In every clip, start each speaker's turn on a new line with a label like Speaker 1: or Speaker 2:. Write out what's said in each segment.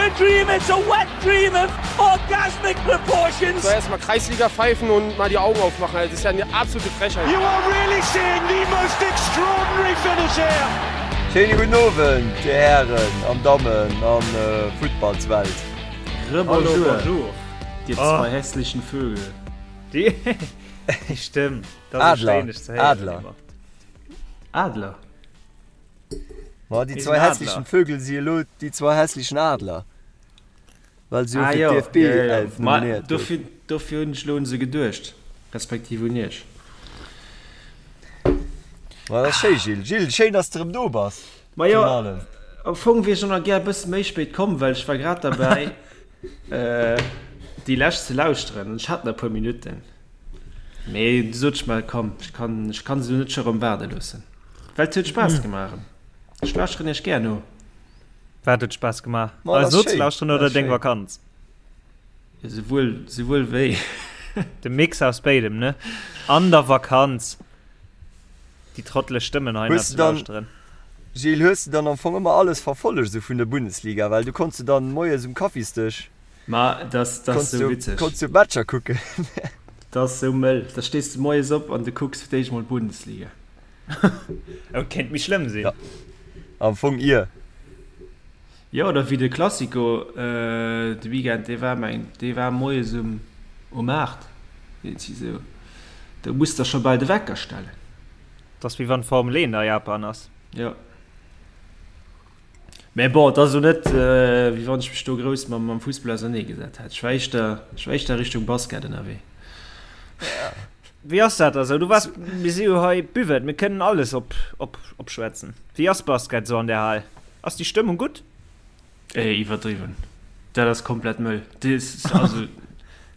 Speaker 1: a dream, it's a wet dream of orgasmic proportions.
Speaker 2: So erstmal Kreisliga pfeifen und mal die Augen aufmachen. Das ist ja eine absolute Frechheit.
Speaker 1: You are really seeing the most extraordinary finish here.
Speaker 3: Schéine gudden Owend, Dir Hären an Dammen an Futtballswelt.
Speaker 4: Rebonjour, bonjour, dir zwei hässlichen Vögel.
Speaker 5: Déi Stëmm, dat ass
Speaker 3: Adler,
Speaker 5: schéin dech ze héieren
Speaker 3: Adler.
Speaker 5: ëmmer.
Speaker 4: Adler?
Speaker 3: Ma déi
Speaker 5: Mir
Speaker 3: zwei
Speaker 5: sinn
Speaker 3: hässlichen
Speaker 5: Adler.
Speaker 3: Vögel si elo déi zwei hässlichen Adler, well se jo
Speaker 4: Ah
Speaker 3: fir
Speaker 4: jo,
Speaker 3: d'DFB
Speaker 4: jo, jo, jo.
Speaker 3: 11
Speaker 4: Ma
Speaker 3: nominéiert
Speaker 4: dofir,
Speaker 3: goufen.
Speaker 4: dofir hunn ech elo un se geduecht, respektiv un iech.
Speaker 3: Ma dat ass schéi, Gilles. Gilles, schéin, dass de erëm do bass.
Speaker 4: Ma jo,
Speaker 3: Virun allem.
Speaker 4: am Fong wier ech och nach gär e bësse méi spéit komm, well ech war grad derbäi, déi lescht ze lauschteren an ech hat nach e puer Minutten. Mee du sot ech mer, komm, ech kann, ech kann se elo net scho rëm waarde loossen. Well et huet Spaass gemaach erëm. Ech lauschteren iech gär no.
Speaker 5: Wat huet Spaass gemaach?
Speaker 3: Ma,
Speaker 5: Eis
Speaker 3: dat ass schéin,
Speaker 5: nozelauschteren
Speaker 3: dat
Speaker 5: oder
Speaker 3: ass
Speaker 5: deng
Speaker 3: schéin.
Speaker 5: Vakanz?
Speaker 4: Souwuel, souwuel wéi.
Speaker 5: De Mix aus béidem, ne? An der Vakanz déi trotteleg Stëmmen hei nach
Speaker 3: Hues
Speaker 5: ze
Speaker 3: de dann,
Speaker 5: lauschteren.
Speaker 3: Gilles, hues de dann am Fong ëmmer alles verfollegt esou vun der Bundesliga? Well du konns jo dann moies um Kaffisdësch
Speaker 4: Ma dat ass
Speaker 3: konns
Speaker 4: sou
Speaker 3: du,
Speaker 4: witzeg.
Speaker 3: konns du d'Matcher kucken.
Speaker 4: Dat ass sou mëll. Da stees de moies op an du kucks fir d'éischt mol d'Bundesliga.
Speaker 5: Oh, kéint méi schlëmm sinn.
Speaker 3: Ja, am Fong ier.
Speaker 4: Jo, oder wéi de Classico de Weekend, dee war meng, dee war moies um um 8, iergendwéi sou. Do muss der scho bal de Wecker stellen.
Speaker 5: Dat ass wéi wann d'Formel 1 a Japan ass.
Speaker 4: Jo. Mä bon, et ass elo net, wéi wann ech mech do grouss mam mam Fussball auserneegesat hätt. Ech war éischter, ech war éischter Richtung Basket ënnerwee.
Speaker 5: Wéi ass dat da sou? Du waars, mir si jo hei Buvette, mir kënnen alles op op opschwätzen. Wéi ass Basket sou an der Hal? Ass déi Stëmmung gutt?
Speaker 4: Ey, iwwerdriwwen. Dat ass komplett mëll. Dis, also,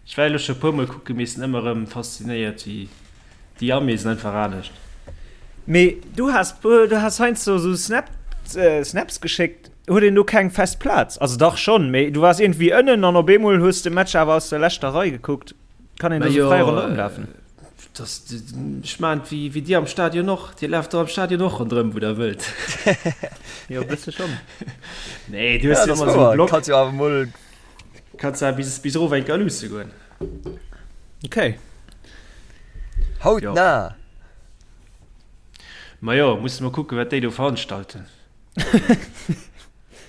Speaker 4: ech war elo scho e puermol kucken, mee sinn ëmmer erëm faszinéiert, wéi déi Armee sinn einfach anescht.
Speaker 5: Mee du has, du has heiansdo sou Snap, Snaps geschéckt. Huet een do keng fest Plaz? Also dach schonn, mee du waars iergendwéi ënnen an op eemol hues de Match awer aus der leschter Rei gekuckt. Kann een do sou fräi ronderëm lafen?
Speaker 4: Das, ech maan wéi, wéi dir am Stadion och. Dir laaft do am Stadion och ronderëm, wou der wëllt.
Speaker 5: Jo, e bësse schonn.
Speaker 4: Nee, du hues
Speaker 3: Ja,
Speaker 4: jo
Speaker 3: dat ass
Speaker 4: ëmmer sou e
Speaker 3: wouer.
Speaker 4: Block.
Speaker 3: Kanns jo awer mol.
Speaker 4: Kanns awer bis, bis erof eng Kéier luusse goen.
Speaker 5: Okay.
Speaker 3: Hautnah!
Speaker 4: Majo, musse mer kucken, wat déi do veranstalten.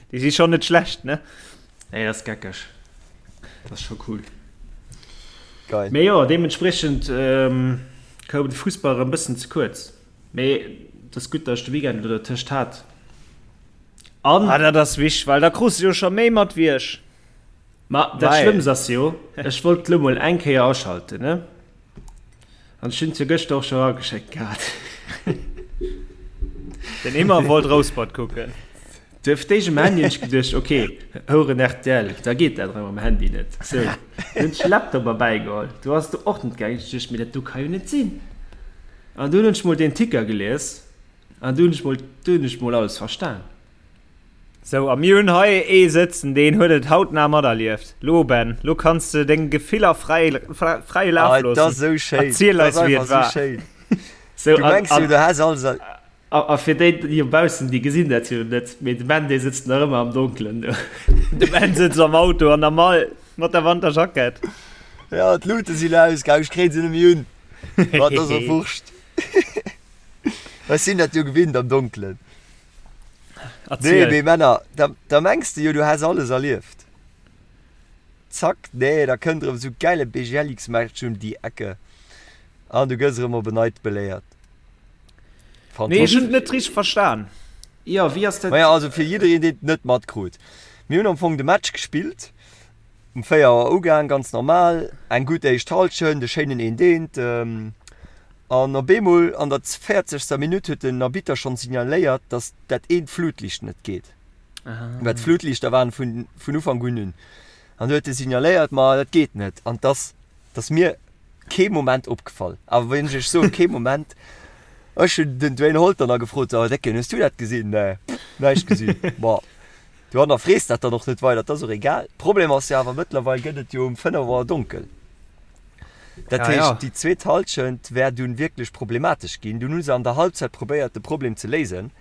Speaker 5: Déi si schonn net schlecht, ne?
Speaker 4: Nee, dat ass geckeg. Dat ass scho cool.
Speaker 3: Geil.
Speaker 4: Mee jo, deementspriechend koum de Fussball erëm bëssen ze kuerz. Mee et ass gutt, datt ech de Weekend elo dertëscht hat.
Speaker 5: An. Ah, dat ass wichteg, well da krus de jo scho méi mat wéi ech.
Speaker 4: Ma dat Schlëmmst ass jo, ech wollt lo mol eng Kéier aschalten, ne? An ech hunn et jo gëschter och scho erageschéckt gehat.
Speaker 5: Den Immer wollt Rouspert kucken.
Speaker 4: Duerf d'éischt um Handy hunn ech geduecht, ok, Houeren rtl, da geet dat erëm am Handy net. Sou, dunn hunn ech de Laptop erbäigeholl, do ass et och net gaangen. Ech duecht, mee dat do ka jo net sinn. An dunn hunn ech mol deen Ticker gelies an du hunn ech mol, du hunn ech mol alles verstan.
Speaker 5: Sou, a mir hunn hei ee sëtzen, deen huet et hautnah materlieft. Lo, Ben, lo kanns de deng Gefiller fräi, fräie Laf
Speaker 3: Ah, et
Speaker 5: loossen.
Speaker 3: ass esou schéin.
Speaker 5: Erziel
Speaker 3: Et
Speaker 5: eis,
Speaker 3: ass
Speaker 5: wéi et
Speaker 3: einfach esou
Speaker 5: war.
Speaker 3: schéin.
Speaker 4: Sou,
Speaker 3: Du
Speaker 4: an,
Speaker 3: mengs jo,
Speaker 4: an,
Speaker 3: du häss alles er.
Speaker 4: a, a fir déi dobaussen, déi gesinn dat jo net, mee de Ben, dee sëtzt nach ëmmer am Donkelen do.
Speaker 5: De Ben sëtzt am Auto an der Mall mat der Wanterjackett.
Speaker 3: Ja, d'Lute sinn ausgaang, ech kréien se net méi un. Ma et ass och wurscht. Ech sinn dat jo gewinnt am Donkelen. Nee,
Speaker 5: Erziel.
Speaker 3: mee Männer, da, da mengs de jo, du häss alles erlieft. Zack, nee, da kënnt erëm esou gäile BGLX-Match um déi Ecke an du gëss erëm op en Neits beléiert.
Speaker 5: Nee, ech hunn
Speaker 3: Fantastesch.
Speaker 5: et net richteg verstan.
Speaker 4: Jo, wéi ass dat?
Speaker 3: Maja, also fir jiddereen, deen et net matkrut, Mir hunn am Fong de Match gespillt, um 4 Auer ugaang, ganz normal, eng gutt éischt Hallschent, e schéinen Eent-Eent. An op eemol an der véierzegster Minutt huet den Arbitter schonn signaléiert, datt dat eent Flutliicht net geet. Well d'Flutliichter waren vun vun Ufank un un. An du huet e signaléiert, ma dat geet net. An dass dass mir kee Moment opgefall. Awer wann ech iech soen, kee Moment, ech hunn den Dwayne Holter nach gefrot, so Décken, hues du dat gesinn? Nee, näischt gesinn. Ma du hannerfrees dat dann och net weider, dat ass och egal. Problem ass jo awer, mëttlerweil gëtt et jo um 5 Auer donkel. Dat
Speaker 5: Ja,
Speaker 3: heescht,
Speaker 5: ja.
Speaker 3: déi zweet Hallschent wär dunn wierklech problematesch ginn. Dunn hu se an der Halbzeit probéiert, de Problem ze léisen.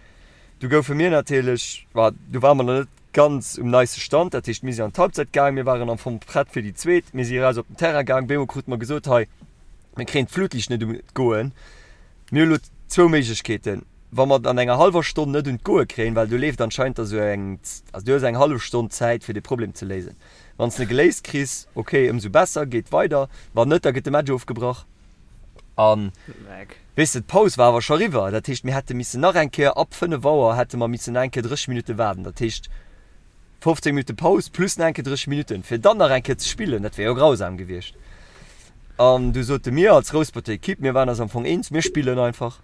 Speaker 3: Du goufe mir natierlech, ma du ware mer nach net. Ganz um neiste Stand. Dat heescht, mir sinn an d'Halbzeit gaang, mir waren am Fong prett fir déi zweet. Mir si eraus op den Terrain gaang, op eemol krute mer gesot, hei, mir kréien d'Flutliicht net un d'Goen. Mir hu lo zwou Méiglechkeeten, Wa mer et an enger hallwer Stonn net un d'Goe kréien, well do leeft anscheinend da sou eng, also du hues eng hallef Stonn Zäit fir dee Problem ze léisen. Wann s de e geléist kriss, ok, ëmsou besser, geet weider. Wann net, da gëtt de Match ofgebrach. An weess de, d'Paus war awer scho riwwer. Dat heescht, mir hätte missen nach eng Kéier, ab 5 Auer hätte mer missen nach eng Kéier 30 Minutte waarden. Dat heescht, 15 Minutte Paus plus nach eng Kéier 30 Minutten, fir dann nach eng Kéier ze spillen. Dat wär jo grausam gewiescht. An du sote mir als Rousperter Ekipp, mir waren eis am Fong eens, mir spillen einfach.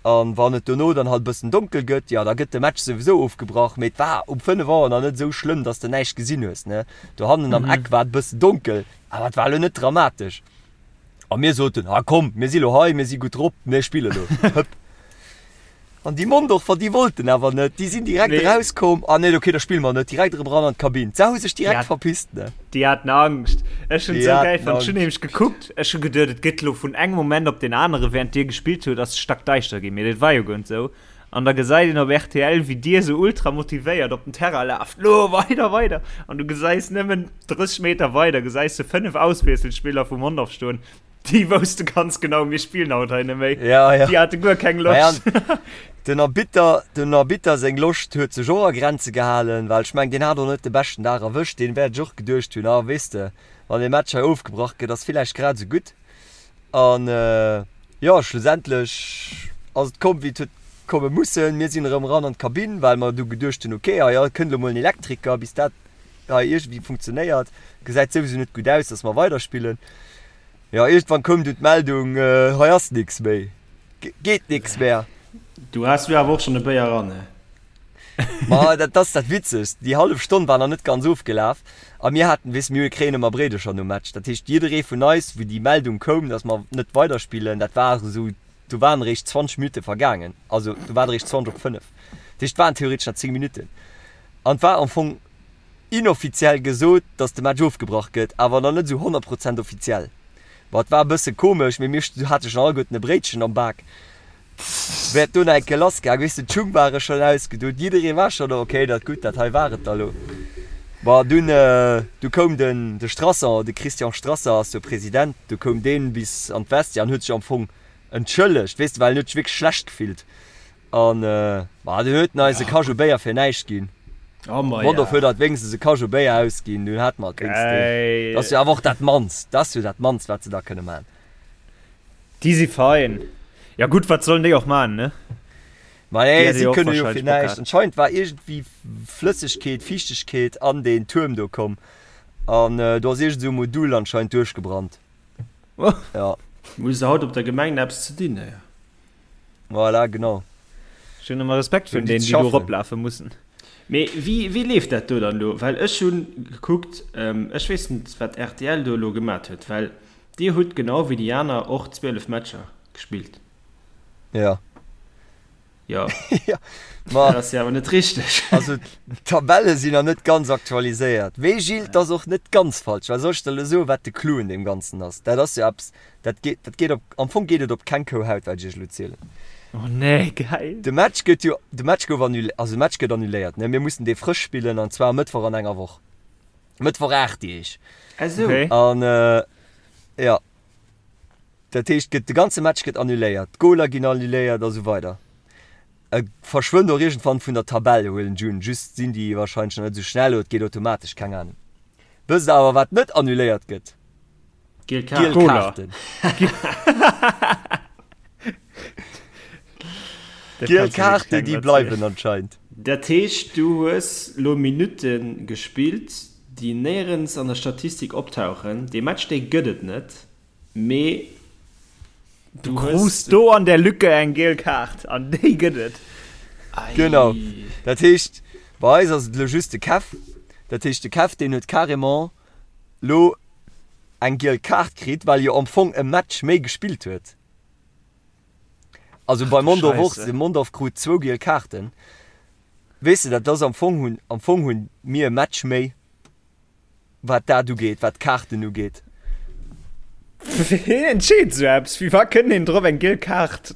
Speaker 3: An wann et dono dann halt e bëssen donkel gëtt, jo, da gëtt de Match souwisou ofgebrach. Mee et war um 5 Auer nach net esou schlëmm, dass de näischt gesinn hues, ne. Dohannen am Eck war et e bëssen donkel, awer et war elo net dramatesch. A mir soten, ah komm, mir si lo hei, mir si gutt drop, mir spille lo. Hëpp. An déi Mondorfer, déi wollten awer net, déi sinn direkt nee. erauskomm, ah nee, okay, da spille mer net, direkt erëm ran an d'Kabinn. Se hu sech direkt ja, verpisst, ne?
Speaker 5: Déi haten Angscht. Ech hunn esou geil fonnt. Ech hunn nämlech gekuckt, ech hu geduet, et gëtt lo vun engem Moment op den anere, während dir gespillt hutt, ass et stackdäischter ginn. Mee dat war jo guer net esou. An da gesäit een op rtl, wéi dir esou ultra motivéiert op den Terrain laaft, Lo, weider, weider! An du gesäis nëmmen 30 Meter weider, gesäis de 5 Auswiesselspiller vu Mondorf stoen, déi wousste ganz genau, mir spillen haut hei net méi.
Speaker 3: Ja, ja.
Speaker 5: Déi hate guer keng
Speaker 3: Loscht. Naja, den Arbitter, den Arbitter seng Loscht huet sech och a Grenze gehalen, well ech mengen, deen hat och net de beschten Dag erwëscht. Deen wäert sech och geduecht hunn, ah, weess de, wann dee Match hei ofgebrach gëtt, ass villäicht grad esou gutt. An jo, schlussendlech ass et komm, wéi et huet komme mussen. Mir sinn erëm eran an d'Kabinn, well mer du geduecht hunn, okay, hei kënnt elo mol en Elektriker, bis dat hei iergendwéi funktionéiert. Gesäit souwisou net gutt aus, dass mer weiderspillen. Jo, iergendwann koum du d'Meldung, hei ass nix méi, geet nix mehr.
Speaker 4: Du has du awer och schonn e Béier eran, he?
Speaker 3: Ma dat ass dat Witzegst, déi hallef Stonn war nach net ganz ofgelaf a mir haten, weess, mir kréien ëmmer Bréidecher nom Match. Dat heescht, jidderee vun eis, wou déi Meldung koum, datt mer net weiderspillen, dat war esou, do waren eréischt 20 Minutte vergaangen, also do war et eréischt 20 op 5. Dat heescht, et waren theoretesch nach 10 Minutten an et war am Fong inoffiziell gesot, datt de Match ofgebrach gëtt, awer nach net esou 100 Prozent offiziell. Bon, et war e bësse komesch, mee mir hate schonn alleguerten e Bréitchen am Bak. Wäert do nach eng Kéier lass gaang, weess de, d'Schung ware schonn ausgedoen, jidderee war schonn do, okay, dat gutt, dat hei war et da lo. Bon, dunn, du koum den, de Strasser, de Christian Strasser ass jo President, du koum deen bis an d'Vestiaire an huet sech am Fong entschëllegt, weess de, well en huet sech wierklech schlecht gefillt. An, ma dunn huet en eis e Kajou Béier fir näischt ginn.
Speaker 4: Oh ma
Speaker 3: Mondorf huet eis wéinstens e Kajou Béier ausginn, dunn hate mer et wéinstens. Dat ass jo awer och dat mannst, dat ass jo dat mannst, wat se da kënne man.
Speaker 5: Déi si fein. Ja gutt, wat sollen déi och man, ne?
Speaker 3: Ma nee, si kënne jo fir näischt. Anscheinend war iergendwéi Flëssegkeet, Fiichtegkeet an deen Tuerm do komm. An do ass iergend esou e Modul anscheinend duerchgebrannt.
Speaker 4: Ja. Hu se haut op der Gemeng eppes ze dinn, hé?
Speaker 3: Voilà, genau.
Speaker 5: Ech hunn ëmmer Respekt virun deenen, déi do eroplafe mussen.
Speaker 4: Mee wéi, wéi leeft dat do dann elo? Well ech hunn gekuckt, ech weess net, wat rtl do elo gemat huet, well Dir hutt genau wéi déi aner och 12 Matcher gespillt.
Speaker 3: Ja.
Speaker 4: Jo.
Speaker 3: Ja, ma.
Speaker 4: Dat ass jo awer net richteg.
Speaker 3: Also, d'Tabelle sinn nach net ganz aktualiséiert. Mee Gilles, 't ass och net ganz falsch, well soll ech der elo soen, wat de Clou un deem Ganzen ass? Dat ass jo eppes, dat geet, dat geet op, am Fong geet et op keng Kou Haut, wat ech iech elo zielen.
Speaker 5: Oh nee, geil.
Speaker 3: De Match gëtt jo, de Match gouf annulé, also de Match gëtt annuléiert, ne? Mir mussen dee frësch spillen, an zwar e Mëttwoch an enger Woch. Mëttwoch 8 Deeg.
Speaker 4: Esou. Okay.
Speaker 3: An jo, dat heescht, gëtt de ganze Match gëtt annuléiert, d'Goler ginn annuléiert a sou weider. E verschwënnt och iergendwann vun der Tabell, huelen ech un. Just sinn déi warscheinlech nach net esou schnell oder et geet automatesch, keng Anung. Wësst der awer, wat net annuléiert gëtt?
Speaker 4: Giel Kaarten.
Speaker 3: Giel Kaarten. Giel Kaarten, déi bleiwen anscheinend.
Speaker 4: Dat heescht, du hues lo Minutte gespillt, déi néierens an der Statistik optauchen. Dee Match, dee gëtt et net, mee
Speaker 5: du hues. Du krus do an der Lücke eng giel Kaart an déi gëtt et.
Speaker 3: Genau. Dat heescht, bei eis ass et elo just de Kev. Dat heescht, de Kev, deen huet carrément lo eng giel Kaart kritt, well e jo am Fong e Match méi gespillt huet. Also bei Mondorf och, de Mondorf krut zwou giel Kaarten. Weess de, dat ass am Fong hunn, am Fong hunn mir e Match méi, wat dat ugeet, wat d'Kaarten ugeet.
Speaker 5: Ween entscheet esou eppes? Wéi wa kënnt een drop eng giel Kaart?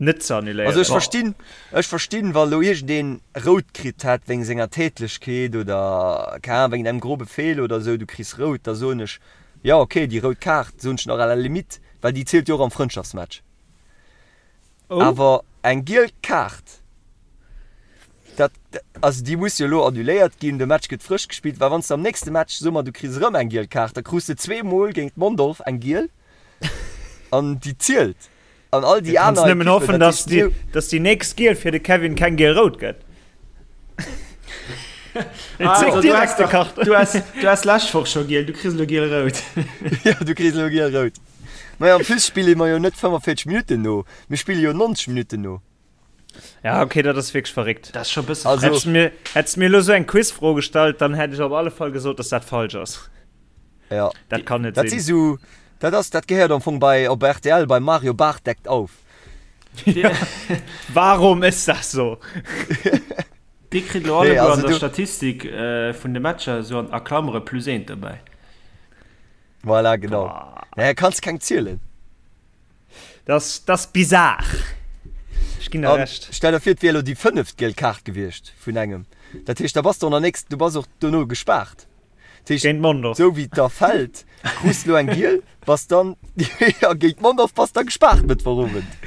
Speaker 5: Net ze annuléieren.
Speaker 3: Also ech verstinn, ech verstinn, wa lo iergendeen rout kritt hätt wéinst senger Tätlechkeet oder, keng Ahnung, wéinst engem grobe Feeler oder esou, du kriss rout, da soen ech, jo ok, déi rout Kaart, soen ech nach à la limite, well déi zielt jo och am Frëndschaftsmatch.
Speaker 5: Oh.
Speaker 3: Awer eng giel Kaart, dat, also déi muss jo elo annuléiert ginn, de Match gëtt frësch gespillt, well wann s de am nächste Match, soe mer, du kriss erëm eng giel Kaart, da krus de zweemol géint Mondorf eng giel an déi zielt. An all déi
Speaker 5: Kanns
Speaker 3: aner
Speaker 5: nëmmen
Speaker 3: Ekippen,
Speaker 5: hoffen,
Speaker 3: dat
Speaker 5: dass
Speaker 3: heescht,
Speaker 5: déi,
Speaker 3: mir-
Speaker 5: dass déi nächst Giel fir de Kevin keng Giel-Rout gëtt.
Speaker 4: Ah,
Speaker 5: Zéck
Speaker 4: also, du
Speaker 5: direkt
Speaker 4: has
Speaker 5: de
Speaker 4: doch-
Speaker 5: Kart.
Speaker 4: Du has, du has lescht Woch scho giel, du kriss elo giel-rout.
Speaker 3: Ja, du kriss elo giel-rout. Maja, en plus spille mer jo net 45 Minutten no, mir spille jo 90 Minutten no.
Speaker 5: Ja, okay, dat ass wierklech verréckt.
Speaker 4: Dat ass scho e bësse
Speaker 3: Also-
Speaker 4: frech.
Speaker 5: Hättest du mir, hättest du mir elo sou eng Quizfro gestallt, dann hätt ech op alle Fall gesot, dass dat falsch ass.
Speaker 3: Ja.
Speaker 5: Dat kann net
Speaker 3: Dat si
Speaker 5: sinn.
Speaker 3: sou, dat ass, dat gehéiert am Fong bei, op rtl bei Mario Barth deckt auf.
Speaker 5: Warum ist das so?
Speaker 4: Dir kritt elo
Speaker 3: Nee,
Speaker 4: alleguer
Speaker 3: also
Speaker 4: an der
Speaker 3: du-
Speaker 4: Statistik äh, vun de Matcher sou an a Klammere plus eent dobäi.
Speaker 3: Voilà, genau.
Speaker 5: Boah.
Speaker 3: Naja, kanns keng zielen.
Speaker 5: Das, das bizar. Ech ginn der
Speaker 3: An
Speaker 5: Recht.
Speaker 3: stell der vir, et wier elo déi fënneft giel Kaart gewiescht vun engem. Dat heescht, da bass de och nach nächst, du bass och dono gespaart. Dat heescht,
Speaker 5: Géint Mondorf.
Speaker 3: sou wéi et da fält, krus de elo eng giel, bass dann, jo, géint Mondorf bass da gespaart Mëttwochowend.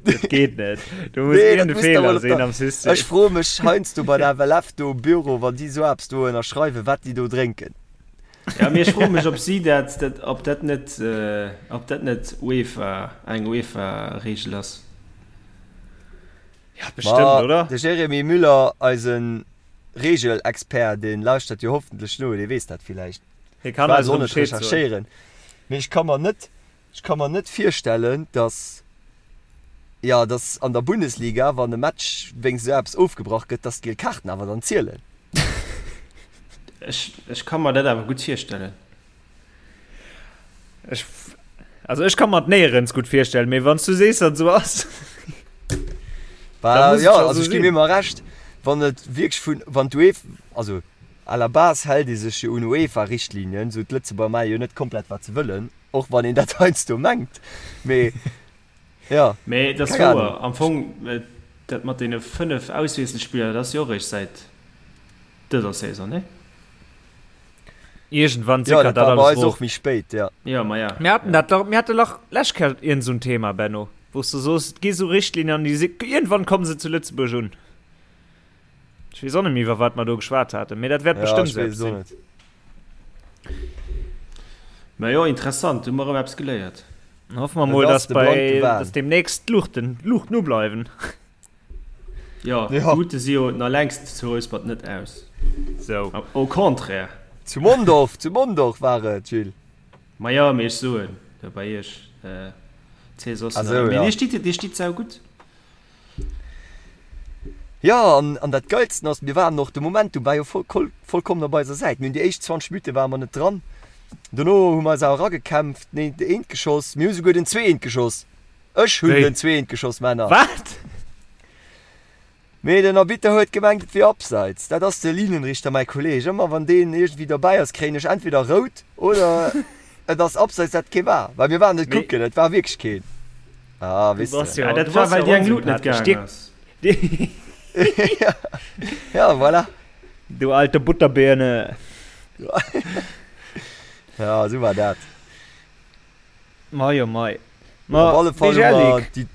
Speaker 5: Dat geet net. Do muss
Speaker 3: Nee, dat
Speaker 5: iergend e
Speaker 3: muss da
Speaker 5: Feeler
Speaker 3: mol op
Speaker 5: sinn
Speaker 3: der.
Speaker 5: am System.
Speaker 3: Ech froe mech heiansdo bei der FLF do um Büro, wann déi sou eppes do ënnerschreiwen, wat déi do drénken.
Speaker 4: Ja, mee ech froe mech, ob si dat, dat, ob dat net, ob dat net UEFA, eng UEFA-Reegel ass.
Speaker 5: Ja, bestëmmt,
Speaker 3: Ma
Speaker 5: oder?
Speaker 3: de Jérémy Müller, eise Reegelexpert, dee lauschtert jo hoffentlech no, dee weess dat villäicht.
Speaker 5: Hie
Speaker 3: Ech
Speaker 5: kann
Speaker 3: war
Speaker 5: eis
Speaker 3: elo
Speaker 5: erëm
Speaker 3: net
Speaker 5: Bescheed soen.
Speaker 3: recherchéieren, mee ech ka mer net, ech ka mer net virstellen, datt, jo, datt an der Bundesliga, wann e Match wéinst esou eppes ofgebrach gëtt, datt d'giel Kaarten awer dann zielen.
Speaker 4: Ech, ech ka mer dat awer gutt virstellen.
Speaker 5: Ech, also ech ka mer et néierens gutt virstellen, mee wann s du sees, datt et esou ass, da
Speaker 3: Bah,
Speaker 5: muss et
Speaker 3: jo,
Speaker 5: scho
Speaker 3: also
Speaker 5: esou
Speaker 3: ech gi
Speaker 5: sinn.
Speaker 3: mir emmer Recht, wann et wierklech vun, wann d'UEF, also à la base hält ee sech jo un UEFA-Richtlinien, sou d'Lëtzebuerger maache jo net komplett wat se wëllen, och wann een dat heiansdo mengt, mee jo,
Speaker 4: Mee et ass
Speaker 3: keng
Speaker 4: wouer,
Speaker 3: Ahnung.
Speaker 4: am Fong, dat mat deene 5 Auswiesselspiller, dat ass jo och eréischt säit dëser Saison, nee?
Speaker 5: Iergendwann
Speaker 3: Jo,
Speaker 5: sickert
Speaker 3: dat
Speaker 5: dat
Speaker 3: war bei
Speaker 5: alles
Speaker 3: eis
Speaker 5: erof.
Speaker 3: och méi spéit, jo.
Speaker 4: Jo, ma ja.
Speaker 5: Mir haten dat dach, mir hate lach lescht Kéier iergend esou en Thema, Benno, wou s du soos, et gi sou Richtlinien an déi si, iergendwann komme se zu Lëtzebuerg un. Ech weess och net méi, iwwer wat mer do geschwat haten, mee dat wäert
Speaker 3: Ja,
Speaker 5: bestëmmt
Speaker 3: ech
Speaker 5: esou
Speaker 3: weess
Speaker 5: eppes
Speaker 3: et och
Speaker 5: sinn.
Speaker 3: net.
Speaker 4: Ma jo, interessant, hu mer erëm eppes geléiert.
Speaker 5: Dann hoffe mer
Speaker 3: Et
Speaker 5: mol,
Speaker 3: ass
Speaker 5: dass
Speaker 3: de
Speaker 5: bei,
Speaker 3: blanke Wahn.
Speaker 5: dass deemnächst d'Luuchten, d'Luuchten ubleiwen.
Speaker 4: Jo,
Speaker 3: Ja.
Speaker 4: d'Luute si jo nach längst zu Rouspert net aus.
Speaker 5: Sou.
Speaker 4: Au contraire.
Speaker 3: Zu Mondorf, zu Mondorf war et, Gilles.
Speaker 4: Ma jo, mee ech soen, do bei iech, ziel soss
Speaker 3: Ah
Speaker 4: nach.
Speaker 3: sou,
Speaker 4: Mee
Speaker 3: ja.
Speaker 4: dir stitt, dir stitt saugutt.
Speaker 3: Jo, an, an dat Geilsten ass, mir waren och, de Momentum war jo voll, vollkommen op eiser Säit. Mir hunn déi éischt 20 Minutte ware mer net dran. Dono hu mer eis awer eragekämpft, den eent eent geschoss, mir hu souguer den zweeent geschoss. Ech hunn
Speaker 5: Wéi?
Speaker 3: den zweeent geschoss, Männer.
Speaker 5: Wat?
Speaker 3: Mee den Arbitter huet gemengt, et wier Abseits. Dat ass de Linienrichter, mäi Kolleeg. Ëmmer wann deen iergendwéi dobäi ass, kréien ech entweder rout oder et ass Abseits, dat kee war. Well mir waren net
Speaker 5: Mee
Speaker 3: kucken, et war wierklech keen. Ah,
Speaker 5: du
Speaker 3: weess
Speaker 5: bass
Speaker 3: de.
Speaker 5: jo,
Speaker 4: Ah, dat
Speaker 5: du
Speaker 4: war,
Speaker 5: bass
Speaker 4: well
Speaker 5: jo
Speaker 4: déi eng Lut net
Speaker 5: onsympathesch.
Speaker 4: gaangen
Speaker 5: Dir,
Speaker 4: ass.
Speaker 5: dir,
Speaker 3: Ja, voilà.
Speaker 5: du alte Butterbirne.
Speaker 3: Ja, esou war dat.
Speaker 5: Mei oh mei.
Speaker 3: Op
Speaker 5: Ma
Speaker 3: alle Fall
Speaker 5: dee
Speaker 3: hu mer
Speaker 5: Jellik.
Speaker 3: déi,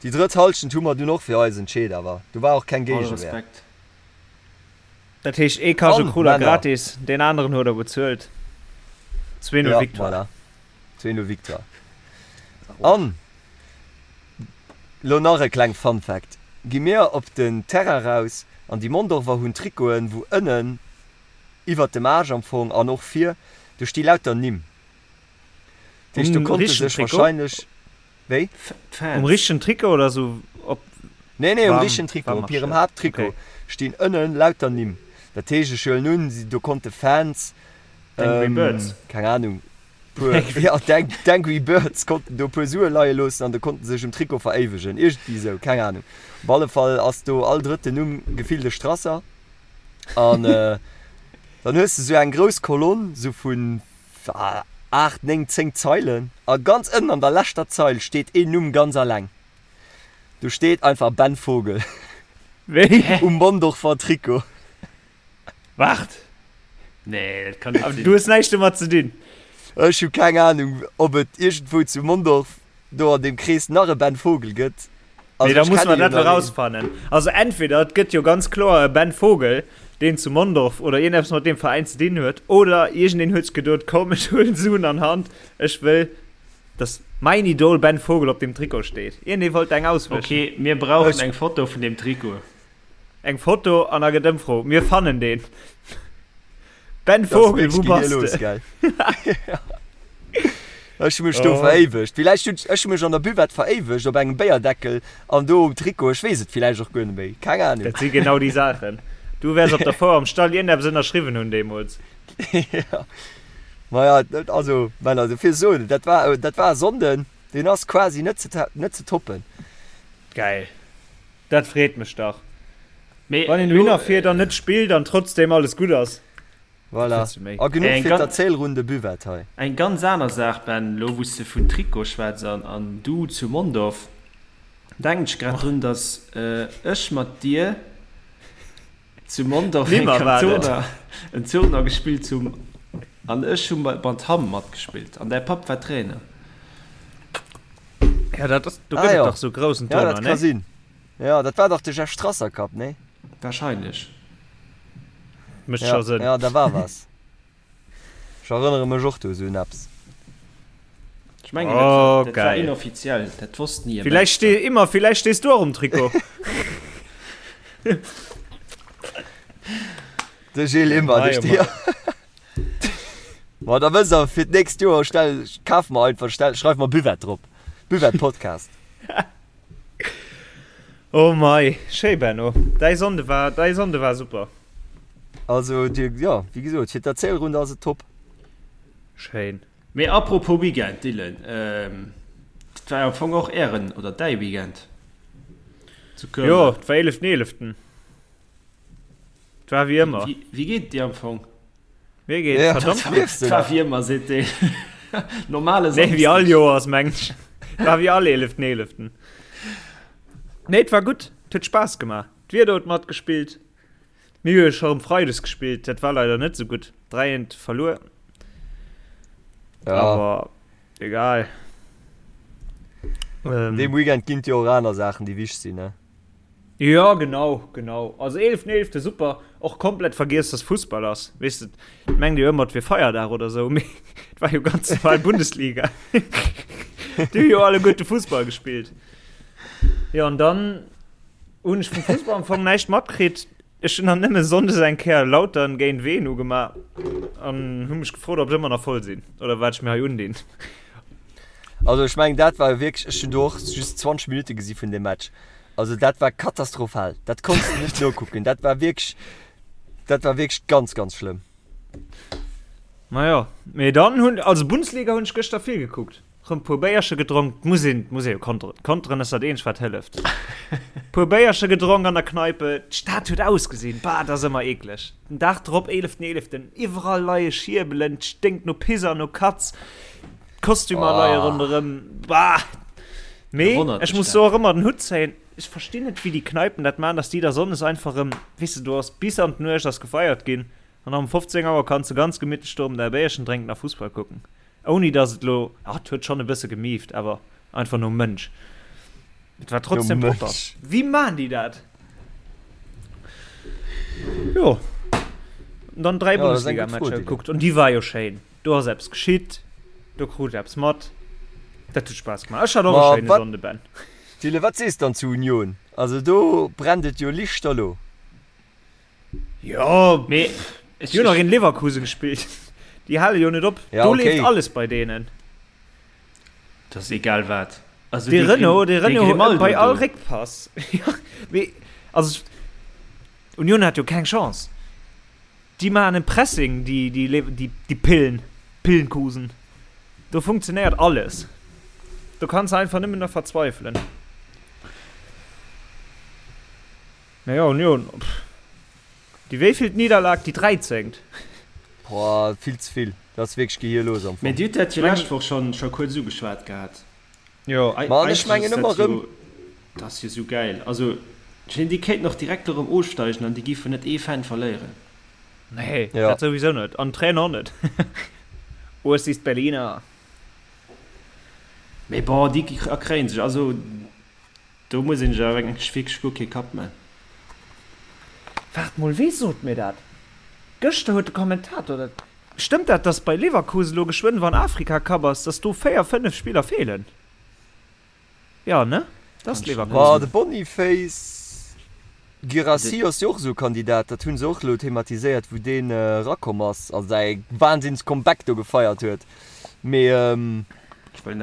Speaker 3: déi drëtt Halschent hu mer dunn och fir eis entscheet, awer do war och keng
Speaker 4: All
Speaker 3: Géigewehr.
Speaker 4: Respekt.
Speaker 5: Dat heescht ee Cajou
Speaker 3: An,
Speaker 5: krut der
Speaker 3: Männer.
Speaker 5: gratis, deen aneren huet der bezuelt. 2-0
Speaker 3: Ja,
Speaker 5: Victoire.
Speaker 3: voilà. 2-0 Victoire. An lo nach e kleng Fun Fact, Gi mir op den Terrain raus an déi Mondorfer hunn Trikoten, wou ënnen iwwert dem Aarsch am Fong an och vir, do sti lauter Nimm. Dat heescht, do
Speaker 5: Um
Speaker 3: konnte
Speaker 5: richtegen
Speaker 3: sech
Speaker 5: Trikot?
Speaker 3: wahrscheinlech, wéi?
Speaker 5: Um
Speaker 4: D'Fans.
Speaker 5: richtegen Trikot oder sou op
Speaker 3: Nee, nee, um
Speaker 5: warm,
Speaker 3: richtegen Trikot,
Speaker 5: warm
Speaker 3: op hirem
Speaker 5: Shirt?
Speaker 3: Haapttrikot
Speaker 5: Okay.
Speaker 3: stinn ënnen lauter Nimm. Dat heescht, ech huelen un, si, do konnte Fans,
Speaker 4: D'Angry
Speaker 3: ähm,
Speaker 4: Birds.
Speaker 3: keng Ahnung, puer, ja, d'Ang, d'Angry Birds konnten do puer Sue leie loossen an do konnten sech um Trikot veréiwegen. Iergendwéi esou, keng Ahnung. Op alle Fall ass do all drëtten Numm gefillt e Strasser. An, äh, dann hues de sou eng grouss Kolonn, sou vun. 8, 9, 10 Zeilen a ganz ënnen an der leschter Zeil steet een Numm ganz alleng. Do steet einfach Ben Vogel
Speaker 5: Wéi?
Speaker 3: um Mondorfer Trikot.
Speaker 5: Waart!
Speaker 4: Nee, dat kann net
Speaker 5: Awer
Speaker 4: sinn.
Speaker 5: du hues näischt domat ze dinn.
Speaker 3: Ech hu keng Ahnung, ob et iergendwou zu Mondorf do an deem Krees nach e Ben Vogel gëtt.
Speaker 5: Nee,
Speaker 3: Also
Speaker 5: da
Speaker 3: ech
Speaker 5: musse
Speaker 3: kenne
Speaker 5: mer
Speaker 3: jo
Speaker 5: dat
Speaker 3: nach een.
Speaker 5: erausfannen. Also entweder et gëtt jo ganz kloer e Ben Vogel, deen zu Mondorf oder iergendeppes mat deem Veräin ze dinn huet, oder iergendeen huet sech geduet, komm ech huelen Suen an Hand, ech wëll, dass mäin Idol Ben Vogel op deem Trikot steet. Iergendee wollt eng auswëschen.
Speaker 4: Okay, mir brauchen
Speaker 3: Ech
Speaker 4: eng Foto vun deem Trikot.
Speaker 5: Eng Foto an da gëtt Ëmfro. Mir fannen deen. Ben
Speaker 3: Dat ass
Speaker 5: Vogel,
Speaker 3: wierklech
Speaker 5: wou bass
Speaker 3: gehirlos,
Speaker 5: de?
Speaker 3: gell? Ech hu mech do
Speaker 5: Oh.
Speaker 3: veréiwegt. Villäicht hunn ech hu mech an der Buvette veréiwegt op engem Béierdeckel an do um Trikot. Ech weess et villäicht och guer net méi. Keng Ahnung.
Speaker 5: Dat si genau déi Saachen. Du wäers op der Fouer am Stall iergendeppes ënnerschriwwen hunn deemools.
Speaker 3: Ja. Maja, also Männer, dofir soen, dat war, dat war e Sonnden, deen ass quasi net ze, net ze toppen.
Speaker 5: Geil. Dat freet mech dach.
Speaker 4: Mee
Speaker 5: Wann een
Speaker 4: elo,
Speaker 5: dohinner fiert an net spillt an trotzdem alles gutt ass.
Speaker 3: Voilà.
Speaker 5: Wat wëlls du méi?
Speaker 3: A genuch
Speaker 4: Eng
Speaker 3: fir
Speaker 4: ganz,
Speaker 3: d'Erzählrunde Buvette hei.
Speaker 4: eng ganz aner Saach, Ben, elo wou s de vun Trikot schwätz an, an du zu Mondorf, denken ech grad drun, dass ech mat dir zu Mondorf eng
Speaker 5: Nimmer war dat.
Speaker 4: Tournoi, en Tournoi gespillt hunn an ech hu mat Hamm matgespillt an däi Papp war Trainer.
Speaker 5: Ja, dat ass, do
Speaker 3: Ah
Speaker 5: gëtt et
Speaker 3: jo.
Speaker 5: dach sou groussen
Speaker 3: Ja,
Speaker 5: Tournoi,
Speaker 3: dat ka
Speaker 5: ne?
Speaker 3: sinn. Ja, dat war dach de Jeff Strasser Cup, nee?
Speaker 4: Wahrscheinlech.
Speaker 5: Mécht
Speaker 3: Ja,
Speaker 5: scho Sënn.
Speaker 3: ja, da war was. Ech erënnere mech och do esou un eppes.
Speaker 4: Ech mengen, dat war,
Speaker 5: Oh,
Speaker 4: dat war
Speaker 5: geil.
Speaker 4: inoffiziell, dat wosst ni e
Speaker 5: Villäicht
Speaker 4: Mensch.
Speaker 5: stee, immer, villäicht stees du och um Trikot.
Speaker 3: De Gilles Immer,
Speaker 5: Mei,
Speaker 3: de
Speaker 5: oh
Speaker 3: Stier.
Speaker 5: mei.
Speaker 3: Ma da wësst der fir d'nächst Joer stell, kaf mer einfach, stell, schreif mer Buvette drop. Buvette Podcast.
Speaker 5: Oh mei, schéi Benno. Däi Sonnde war, däi Sonnde war super.
Speaker 3: Also dir, jo, wéi gesot, fir d'Erzählrunde ass et top.
Speaker 5: Schéin.
Speaker 4: Mee apropos Weekend, Dylan, dat war jo am Fong och ären oder däi Weekend zu Köln.
Speaker 5: Jo, et war eeleften eeleften. Et war wéi ëmmer.
Speaker 4: Wéi geet et dir am Fong?
Speaker 5: Mir geet
Speaker 3: Ja,
Speaker 5: verdammt
Speaker 3: dat
Speaker 5: gutt.
Speaker 3: liefst du
Speaker 4: Et war
Speaker 3: nach.
Speaker 4: wéi ëmmer, seet deen. Normale
Speaker 5: Nee, wéi all
Speaker 4: Samsdeg.
Speaker 5: Joers, mengen ech. Et war wéi all eeleften eeleften. Nee, et war gutt. Et huet Spaass gemaach. D'Wieder huet matgespillt. Mir hu jo scho erëm Freides gespillt, dat war leider net sou gutt. 3 eent verluer.
Speaker 3: Ja.
Speaker 5: Awer egal. Ähm,
Speaker 3: Deem Weekend ginn et jo och aner Saachen, déi wichteg sinn, ne?
Speaker 5: Jo, genau, genau. Also eeleften eelefte super. Och komplett vergiess, dass Fussball ass. Weess de, et mengt jo ëmmer, et wier Feierdag oder sou, mee et war jo ganz normal Bundesliga. Déi hu jo alleguerte Fussball gespillt. Jo, an dann hunn ech vum Fussball am Fong näischt matkritt. Ech hunn dann nëmme sonndes eng Kéier Lautern géint Wehen ugemaach an hu mech gefrot, ob ech ëmmer nach voll sinn oder wat ech mir hei undinn.
Speaker 3: Also ech mengen, dat war jo wierklech, ech hunn do och just 20 Minutte gesi vun deem Match. Also dat war katastrophal. Dat konns de net nokucken. Dat war wierklech, dat war wierklech ganz, ganz schlëmm.
Speaker 5: Majo, mee dann hunn, also Bundesliga hunn ech gëschter vill gekuckt. Rëm puer Béierche gedronk, muss een, muss ee jo konteren. Konteren ass dat eenzegt wat hëlleft. Puer Béierche gedronk an der Kneipe, d'Stad huet ausgesinn, bah, dat ass ëmmer eekleg. Den Dag drop, eeleften eeleften, iwwerall leie Schierbelen, et sténkt no Piss an no Katz, d'Kostümer leie ronderëm, bah. Mee ech muss do och ëmmer den Hutt zéien, ech verstinn net wéi déi Kneipen dat maachen, dass déi da sonndes einfach erëm, weess de, do ass bis an d'Nuecht ass gefeiert ginn an da um 15 Auer kanns de ganz gemittlech do erëm däi Béierchen drénken a Fussball kucken, ouni dass et elo, ah et huet schonn e bësse gemieft, awer einfach nom Mënsch. Et war trotzdem propper. Wéi maachen déi dat? Jo, an dann 3 Bundesliga-Matcher gekuckt an déi war jo schéin. Do ass eppes geschitt, do krut ech eppes mat. Dat huet Spaass gemaach. Ech hat och e
Speaker 3: Ma
Speaker 5: schéine
Speaker 3: wat,
Speaker 5: Sonnde, Ben.
Speaker 3: Dylan, wat sees dann zu Union? Also do brennt et jo lichterlo.
Speaker 5: Jo,
Speaker 4: Mee
Speaker 5: déi hunn och géint Leverkusen gespillt. Déi hale jo net op.
Speaker 3: Ja,
Speaker 5: Do
Speaker 3: okay.
Speaker 5: leeft alles bei deenen.
Speaker 4: Dat ass egal wat. Also
Speaker 5: Dee
Speaker 4: dee
Speaker 5: Renault,
Speaker 4: Grim,
Speaker 5: dee
Speaker 4: dee
Speaker 5: Renault
Speaker 4: Grimaldo
Speaker 5: bei all
Speaker 4: do.
Speaker 5: Réckpass. Jo, mee also Union hat jo keng Chance. Déi maachen en Pressing, déi, déi, déi, déi Pillen, Pillenkusen. Do funktionéiert alles. Do kanns de einfach nëmmen nach verzweifelen. Mä jo, Union, pff. Déi wéivillt Nidderlag? Déi dräizéngt?
Speaker 3: Boah, vill ze vill. Dat ass wierklech gehierlos am
Speaker 4: Fong. Mee Dir hutt dat jo lescht Woch schonn scho kuerz ugeschwat gehat.
Speaker 5: Jo.
Speaker 3: Ma an ech mengen ëmmer erëm.
Speaker 4: Dat ass jo sou gäil. Also, ech mengen, déi kéinten och direkt erëm ofsteigen an déi géifen net ee Fan verléieren.
Speaker 5: Nee, dat souwisou net. An d'Trainer och net. Urs ist Berliner.
Speaker 4: Mee bon, déi erkréien sech. Also, do muss een sech awer wierklech guer kee Kapp man.
Speaker 5: Waart mol, wee sot mir dat? Gëschter huet de Kommentator dat. Stëmmt dat, dass bei Leverkusen elo geschwënn wann Afrika Cup ass, dass do 4, 5 Spiller feelen? Jo ne? Dat ass
Speaker 3: Leverkusen. Ma de Boniface Guirassy ass jo och esou e Kandidat, dat hu se och elo thematiséiert, wou deen erakomm ass a säi Wahnsinns Comeback do gefeiert huet. Mee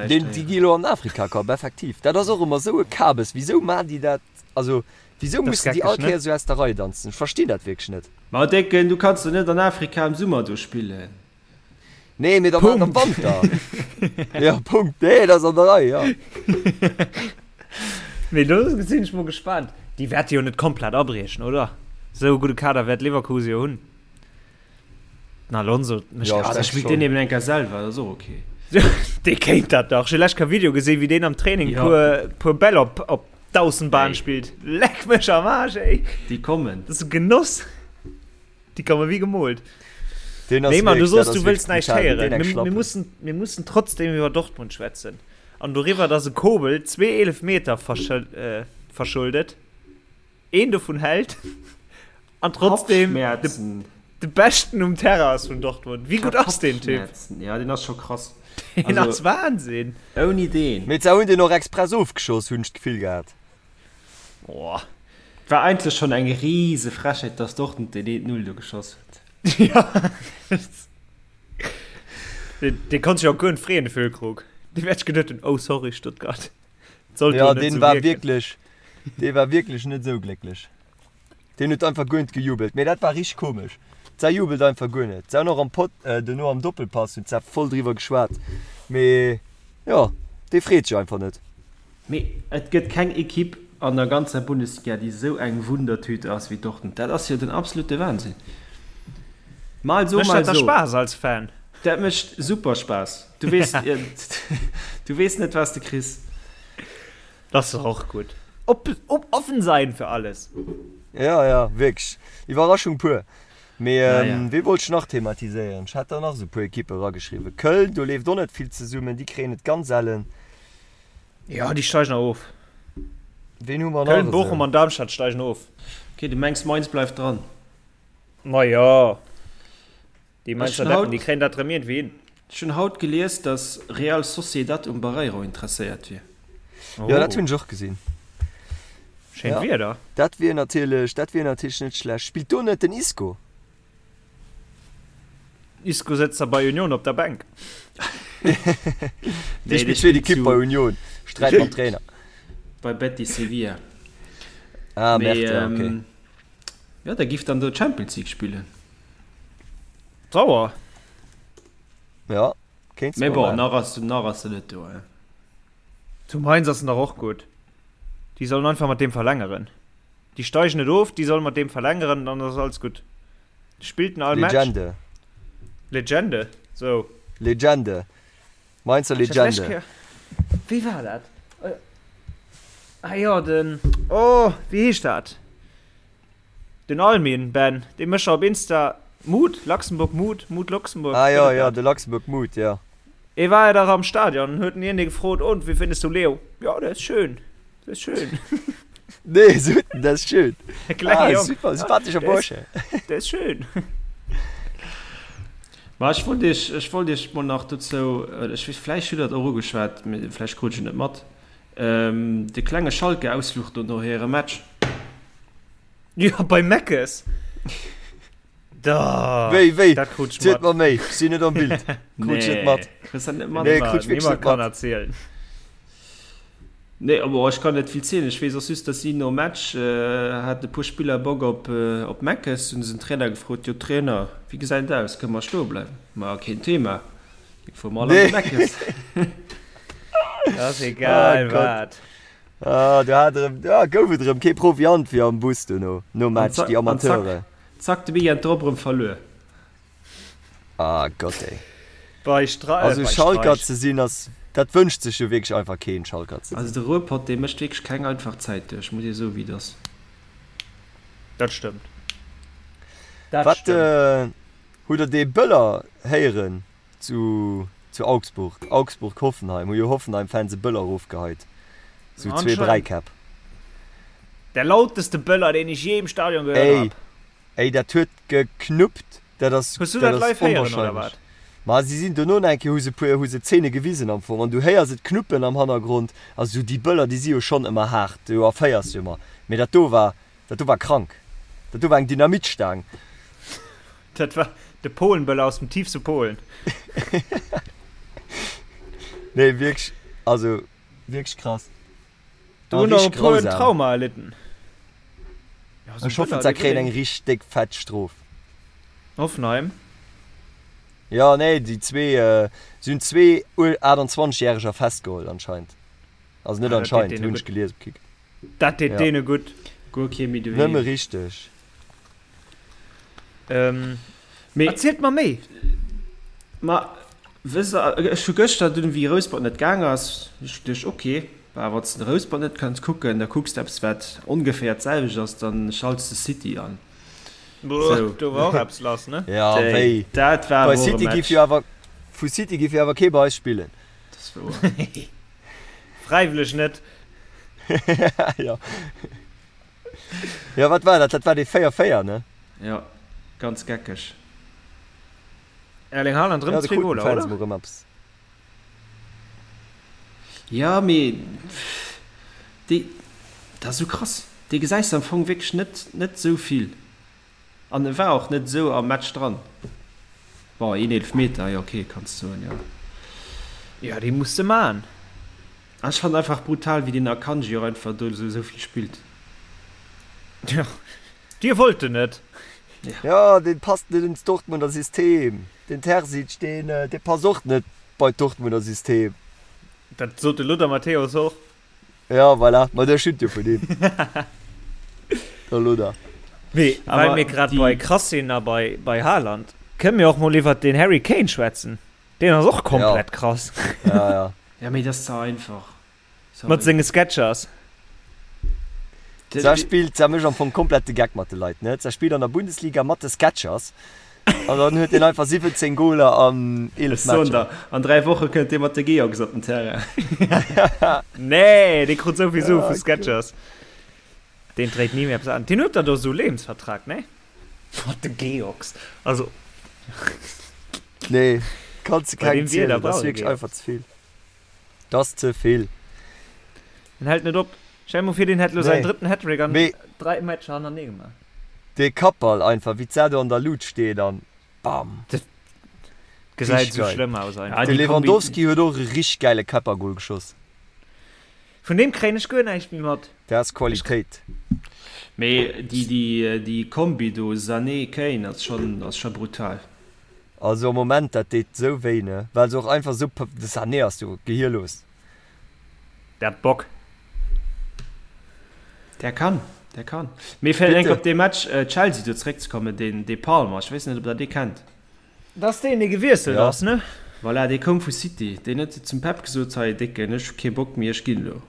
Speaker 3: deen, déi gi elo an den Afrika Cup, effektiv. Dat ass och ëmmer esou e Kabes. Wisou maachen déi dat? Also wisou mussen déi all Kéier esou aus der Rei danzen? Ech verstinn dat wierklech net.
Speaker 4: Ma Décken, du kanns jo net an Afrika am Summer do spillen.
Speaker 3: Nee, mee da maacht am Wanter. Ja, Punkt. Nee, dat ass an der Rei, jo.
Speaker 5: Mee do sinn ech mol gespaant. Déi wäerte jo net komplett abriechen, oder? Esou e gudde Kader wäert Leverkusen jo hunn. Den Alonso
Speaker 4: mécht ja, dat spillt deen eben enker selwer, dat ass och okay.
Speaker 5: Dee kéint dat dach. Ech hu lescht Kéier Video gesinn, wéi deen am Training ja. puer, puer Bäll op, op d'Aussenbahn spillt. Leck mech am Arsch, ey.
Speaker 4: Déi kommen.
Speaker 5: Dat ass e Genoss. Déi komme wéi gemoolt.
Speaker 3: Den ass
Speaker 5: Nee, Mann, du
Speaker 3: wierklech, dat
Speaker 5: soos,
Speaker 3: ass
Speaker 5: du wëlls
Speaker 3: wierklech
Speaker 5: näischt
Speaker 3: brutal,
Speaker 5: héieren.
Speaker 3: deen eng
Speaker 5: Mir, mir
Speaker 3: Schlappen.
Speaker 5: mussen, mir mussen trotzdem iwwer Dortmund schwätzen. An doriwwer, dass e Kobel zwee Eelefmeter verschël, äh, verschuldet, een dovun hält an trotzdem de,
Speaker 4: Kopfschmerzen.
Speaker 5: de Beschten um Terrain ass vun Dortmund. Wéi gutt ass deen Typ?
Speaker 4: Kopfschmerzen. Ja, deen ass scho krass.
Speaker 5: Deen
Speaker 4: Also,
Speaker 5: ass Wahnsinn.
Speaker 4: ouni deen.
Speaker 3: Mee se hunn deen och express ofgeschoss, hunn ech d'Gefill gehat.
Speaker 5: Boah.
Speaker 4: War eigentlech schon eng riese Frechheet, dass Dortmund den 1-0 do geschoss huet.
Speaker 5: Ja. Deen, deen konnt sech och guer net freeën, de Füllkrug. Dee wäert sech geduet hunn, oh sorry Stuttgart. Sollt
Speaker 3: Ja,
Speaker 5: jo net
Speaker 3: deen
Speaker 5: sou
Speaker 3: war
Speaker 5: wierken.
Speaker 3: wierklech, dee war wierklech net esou glécklech. Deen huet einfach guer net gejubelt. Mee dat war richteg komesch. D'Sa jubelt einfach guer net. Se hunn och am Pod, duerno am Doppelpass hunn d'Sa voll driwwer geschwat. Mee jo, dee freet sech einfach net.
Speaker 4: Mee et gëtt keng Ekipp an der ganzer Bundesliga, déi esou eng Wundertüte ass wéi Dortmund. Dat ass jo den absolute Wahnsinn. Mal so,
Speaker 5: Mécht
Speaker 4: mal
Speaker 5: dat da
Speaker 4: so.
Speaker 5: Spaass als Fan?
Speaker 4: Dat mécht super Spaass. Du weess, du weess net, wat s de kriss.
Speaker 5: Dat ass doch och gutt. Op, op, offen sein für alles.
Speaker 3: Ja, ja, wierklech. Iwwerraschung pur. Mee
Speaker 4: Naja.
Speaker 3: wee wollt ech nach thematiséieren? Ech hat der nach esou e puer Ekippe erageschriwwen. Köln, do leeft och net vill zesummen, déi kréien et ganz ellen.
Speaker 5: Ja, déi steigen nach of.
Speaker 3: Ween hu mer nach
Speaker 5: Köln, Bochum
Speaker 3: esou?
Speaker 5: an Darmstadt steigen of.
Speaker 4: Okay, du mengs Mainz bleift dran?
Speaker 5: Ma jo, déi
Speaker 4: Ech
Speaker 5: Mainzer
Speaker 4: hunn
Speaker 5: Deppen, déi
Speaker 4: haut,
Speaker 5: kréien dat rëm iergendwéi hin.
Speaker 4: ech hunn haut gelies, dass Real Sociedad um Barreiro interesséiert wier.
Speaker 3: Jo, dat
Speaker 5: Oh,
Speaker 3: hunn ech och gesinn.
Speaker 5: schéint
Speaker 3: Ja,
Speaker 5: Wieder.
Speaker 3: dat wier natierlech, dat wier natierlech net schlecht. Spillt do net den Isco?
Speaker 5: Isco sëtzt da bei Union op der Bänk.
Speaker 3: Dee spillt zweet Ekipp bei Union, sträit mam Trainer.
Speaker 4: Bei Betis Sevilla.
Speaker 3: Ah, merde, ja, okay.
Speaker 4: Ähm, ja, der giff dann do Champions League spillen.
Speaker 5: Sauer.
Speaker 3: Ja, kéints
Speaker 4: Mee
Speaker 3: de
Speaker 4: bon,
Speaker 3: maachen.
Speaker 4: nach ass, nach ass en net do, hein.
Speaker 5: Zu Mainz ass en dach och gutt. Déi sollen einfach mat deem verlängeren. Déi steigen net of, déi sollen mat deem verlängeren, dann ass alles gutt. Spillt en all Match.
Speaker 3: Legende.
Speaker 5: Legende, sou.
Speaker 3: Legende. Mainzer Legende.
Speaker 5: Wéi war dat? Ah jo, den, oh, wéi heescht dat? Den Almin, Ben, dee mécht op Insta Mood, Luxembourg Mood, Mood Luxembourg.
Speaker 3: Ah jo, jo, de Luxembourg Mood, jo.
Speaker 5: E war jo dach am Stadion, huet en iergendee gefrot, Und, wie findest du Leo? Ja, der ist schön. Der ist schön.
Speaker 3: Nee, so, dat ist schön.
Speaker 5: Klenge
Speaker 3: Ah,
Speaker 5: Jong.
Speaker 3: super, sympathescher
Speaker 5: Der ist,
Speaker 3: Bursche.
Speaker 5: der ist schön.
Speaker 4: Ma ech wollt iech, ech wollt iech mol nach dozou, ech weess, vläicht hutt der et och ugeschwat, mee vläicht krut ech et net mat, de klenge Schalke-Ausfluch do no hirem Match.
Speaker 5: Ja, bei Meckes. Da,
Speaker 3: Wéi, wéi?
Speaker 5: dat krut ech
Speaker 3: Zielt
Speaker 5: mat.
Speaker 3: mer méi, ech sinn net am Bild. Krut ech net mat.
Speaker 4: Kriss dat net mat?
Speaker 3: Nee, krut ech wierklech
Speaker 5: Niemand
Speaker 3: net
Speaker 5: kann
Speaker 3: mat.
Speaker 5: erzielen.
Speaker 4: Nee, bon, ech kann net vill zielen. Ech weess och just, dass si nom Match haten e puer Spiller Bock op op Meckes. Hunn se den Trainer gefrot, Jo Trainer, wéi gesäit et aus, kënne mer stoe bleiwen? Ma keen Thema, fuere mer all an de Meckes.
Speaker 5: Dat ass egal
Speaker 3: Oh Gott.
Speaker 5: wat.
Speaker 3: Ah, do hat erëm, ah, gouf et erëm kee Proviant fir am Bus dono, nom
Speaker 4: An
Speaker 3: Match, déi
Speaker 4: zack, an zack,
Speaker 3: Amateure.
Speaker 4: zack de Weekend drop erëm verluer.
Speaker 3: Ah Gott ey.
Speaker 5: Bei Stra
Speaker 3: Also
Speaker 5: bei
Speaker 3: Schalker
Speaker 5: Streich.
Speaker 3: ze sinn ass, dat wënscht sech jo wierklech einfach keen, Schalker ze
Speaker 4: Also
Speaker 3: sinn.
Speaker 4: de Ruhrpott dee mécht wierklech keng einfach Zäit duerch, muss ee soe wéi et ass.
Speaker 5: Dat stëmmt. Dat
Speaker 3: Wat
Speaker 5: stëmmt.
Speaker 3: hutt der dee Böller héieren zu zu Augsburg? Augsburg Hoffenheim, hu jo Hoffenheim-Fans e Böller erofgeheit. Sou zwee
Speaker 5: Anscheinend.
Speaker 3: Bräikäpp.
Speaker 5: Der lauteste Böller deen ech jee im Stadion gehört
Speaker 3: Ey,
Speaker 5: hab.
Speaker 3: ey dat huet geknuppt, dat ass,
Speaker 5: Hues du
Speaker 3: dat
Speaker 5: dat
Speaker 3: ass
Speaker 5: live héieren oder
Speaker 3: onwahrscheinlech.
Speaker 5: wat?
Speaker 3: Ma si sinn dono nach eng Kéier, hu se puer, hu se Zeene gewisen am Fong an du héiers et knuppen am Hannergrond. Also sou déi Böller, déi si jo schonn ëmmer haart, do erféiers du ëmmer. Mee dat do war, dat do war krank. Dat do war eng Dynamitstaang.
Speaker 5: Dat war de Polenböller aus dem tiefste Polen.
Speaker 3: Nee, wierklech, also wierklech krass.
Speaker 5: Do hunn och e puer en Trauma erlidden.
Speaker 3: Ech hoffen se kréien eng richteg déck fett Strof.
Speaker 5: Hoffenheim?
Speaker 3: Jo, nee, déi zwee, se hunn zwee 28 järeger festgeholl anscheinend. Also net anscheinend, hunn ech gelies op Kick.
Speaker 5: Dat deet deene gutt.
Speaker 4: Guer kee méi doheem.
Speaker 3: Nëmme richteg.
Speaker 5: Mee erzielt mer méi!
Speaker 4: Ma wësst der, ech hu gëschter dunn, wéi Rouspert net gaang ass, hu ech geduecht, ok, bah, wann s de Rouspert net kanns kucken, da kucks de eppes, wat ongeféier d'selwecht ass, dann schalts de City an.
Speaker 5: Boah, do war och eppes lass, ne?
Speaker 3: Ja, wéi?
Speaker 4: Dat war
Speaker 3: Bei
Speaker 4: awer och e
Speaker 3: City giff
Speaker 4: Match.
Speaker 3: jo awer, vu City giff jo awer kee bei eis spillen.
Speaker 4: Dat ass wouer.
Speaker 5: Fräiwëlleg net.
Speaker 3: Jo. Jo, wat war dat? Dat war dee 4-4, ne?
Speaker 4: Jo, ganz geckeg.
Speaker 5: Erling Haaland rëm zwee Goler, oder?
Speaker 3: Mol rëm eppes.
Speaker 4: Jo, mee déi, dat ass esou krass, dee gesäis de am Fong wierklech net, net esou vill. An e war och net esou am Match dran. Bon, een Eelefmeter, jo ok, kanns de soen, jo.
Speaker 5: Jo, dee muss de man.
Speaker 4: An ech fannen einfach brutal wéi deen Akanji och einfach do esou vill spillt.
Speaker 5: Jo, dir wollt en net.
Speaker 3: Jo, deen passt net ins Dortmunder System. Den Terzic, deen dee passt och net bei d'Dortmunder System.
Speaker 5: Dat sot de Lothar Matthäus och.
Speaker 3: Ja, voilà, ma der schütt jo vun him. Der Lothar.
Speaker 5: Mee well mir grad bei krass sinn a bei bei Haaland, kënne mir och mol iwwert den Harry Kane schwätzen. Deen ass och komplett krass.
Speaker 3: Ja, ja.
Speaker 4: Ja, mee dat ass ze einfach.
Speaker 5: Sorry. Mat senge Sketchers.
Speaker 3: Sa spillt, sa mécht am Fong komplett de Geck mat de Leit, ne? Sa spillt an der Bundesliga mat de Sketchers an dann huet deen einfach 17 Goler an 11
Speaker 4: Ech soen
Speaker 3: Matcher.
Speaker 4: der, an 3 Woche kënnt dee mat de Georgs op den Terrain.
Speaker 5: Nee, dee krut souvill Sue vu Sketchers. Deen dréit ni méi eppes an. Deen huet der do sou Lebensvertrag, ne? Mat de Georgs. Also.
Speaker 3: Nee, kanns de
Speaker 5: Bei
Speaker 3: kengem
Speaker 5: deem Wieder
Speaker 3: zielen, dat ass
Speaker 5: brauch e
Speaker 3: wierklech
Speaker 5: Georgs.
Speaker 3: einfach ze vill. Dat ass ze vill.
Speaker 5: En hält net op. Stell mol vir, deen hätt lo säin
Speaker 3: Nee.
Speaker 5: drëtten Hattrick an
Speaker 3: Mee
Speaker 5: 3 Matcher hannerneë gemaach.
Speaker 3: dee Kappball einfach, wéi d'Sa do an der Lut steet an bam.
Speaker 5: Dat gesäit
Speaker 3: Richteg
Speaker 5: esou
Speaker 3: geil.
Speaker 5: schlëmm aus
Speaker 4: Ja,
Speaker 5: einfach.
Speaker 3: De
Speaker 4: déi Kombi.
Speaker 3: Lewandowski huet och e richteg gäile Käppergol geschoss.
Speaker 5: Vun deem kréien ech guer näischt méi mat.
Speaker 3: Dat ass Qualitéit.
Speaker 4: Mee déi, déi, déi Kombi do, Sané, Kane, ass schonn, ass scho brutal.
Speaker 3: Also am Moment, dat deet sou wéi, ne? Well se och einfach sou, de Sané ass jo gehierlos.
Speaker 5: Der hat Bock.
Speaker 4: Der kann, der kann. Mee fir enk
Speaker 3: Bitte.
Speaker 4: op dee Match Chelsea do zeréckzekommen, deen, dee Palmer, ech weess net, ob der dee kennt.
Speaker 5: Dat ass deen, dee gewiesselt
Speaker 3: Ja.
Speaker 5: ass, ne?
Speaker 4: Voilà, dee koum vu City. Deen huet zum Pep gesot, Hei Décken, ech hu kee Bock méi, ech ginn elo.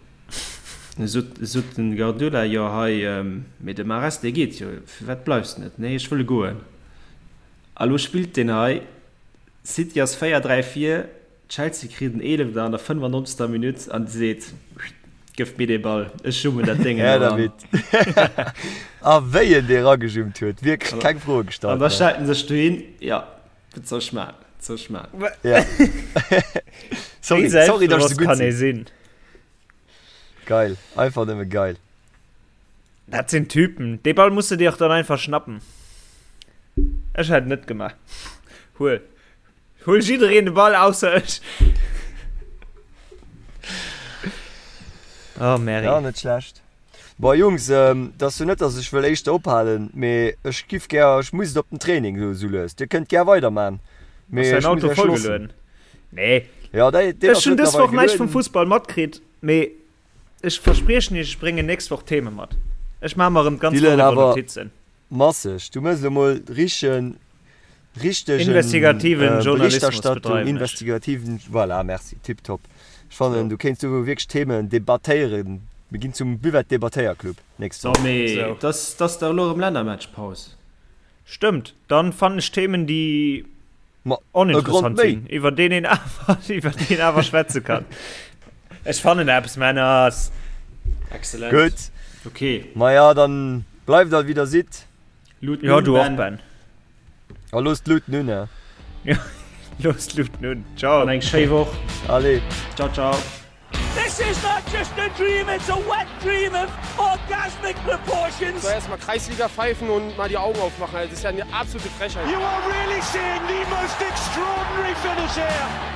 Speaker 4: Du sot, sot den Guardiola, Jo hei, mee de Mahrez, dee geet jo, firwat bleifs de net? Nee, ech wëll goen. A lo spillt deen hei, City ass 4, 3 vir, Chelsea kritt en Eelefter an der 95. Minutt an seet, Gëff mir dee Ball, ech jummen dat Déngen
Speaker 3: Här
Speaker 4: elo an.
Speaker 3: dermit. A wéi en dee ragejummt huet, wierklech keng Froe
Speaker 4: An
Speaker 3: gestallt,
Speaker 4: da
Speaker 3: ne?
Speaker 4: stellt en sech dohin, jo, wat soll ech maachen, wat soll ech maachen?
Speaker 3: Ja.
Speaker 5: Wéi
Speaker 3: Sorry, sorry, dass ech
Speaker 5: selbstbewosst
Speaker 3: esou gutt
Speaker 5: kann ee
Speaker 3: sinn.
Speaker 5: sinn?
Speaker 3: Geil, einfach nëmme geil.
Speaker 5: Dat sinn Typen. Dee Ball muss de dir och dann einfach schnappen. Ech hätt net gemaach. Huel. Huel jiddereen de Ball ausser ech. Oh Mary.
Speaker 3: Ja, net schlecht. Bon Jungs, et ass jo net, dass ech wëll éischter ophalen, mee ech giff gär, ech muss et op den Training esou esou lues. Dir kënnt gär weiderman, mee
Speaker 5: Ass däin
Speaker 3: ech muss
Speaker 5: Auto
Speaker 3: iech loossen.
Speaker 5: vollgelueden? Nee.
Speaker 3: Ja, dei, deen
Speaker 5: Ech
Speaker 3: ass
Speaker 5: hunn dës
Speaker 3: mëttlerweil
Speaker 5: Woch näischt vum
Speaker 3: gelueden.
Speaker 5: Fussball matkritt, mee Ech verspriechen iech, ech bréngen nächst Woch Theme mat. Ech maache mer erëm d'ganz Woch
Speaker 3: Dylan,
Speaker 5: iwwer
Speaker 3: awer
Speaker 5: Notizen.
Speaker 3: masseg, du mëss elo mol richen. Richtegen
Speaker 5: Investigativen Journalismus
Speaker 3: Berichterstattung,
Speaker 5: bedreiwen ech.
Speaker 3: investigativen, voilà, merci, tiptop. Ech fannen, du kéints do wierklech Themen debattéieren. Mir ginn zum Buvette-Debattéierclub nächst
Speaker 4: So,
Speaker 3: Woch.
Speaker 4: mee
Speaker 5: Sou.
Speaker 4: dass dass dach elo erëm Lännermatchpaus.
Speaker 5: Stëmmt, dann fannen ech Themen, déi
Speaker 3: Ma e Grond
Speaker 5: oninteressant
Speaker 3: méi.
Speaker 5: sinn, iwwer deen een awer, iwwer déi een awer schwätze kann. Ech fannen eppes, Männers.
Speaker 4: Excellent.
Speaker 3: Gutt.
Speaker 4: Okay.
Speaker 3: Maja, dann bleift all wéi der sidd.
Speaker 4: Lut
Speaker 5: Ja,
Speaker 4: nun,
Speaker 5: du och,
Speaker 4: Ben.
Speaker 5: Ben.
Speaker 3: A looss d'Lut nun, eh?
Speaker 5: Ja, looss d'Lut nun. Ciao.
Speaker 4: An eng schéi Woch.
Speaker 3: Allez.
Speaker 4: Ciao, ciao.
Speaker 1: This is not just a dream, it's a wet dream of orgasmic proportions.
Speaker 2: So erstmal Kreisliga pfeifen und mal die Augen aufmachen. Also, das ist ja eine absolute Frechheit.
Speaker 1: You are really seeing the most extraordinary finish here.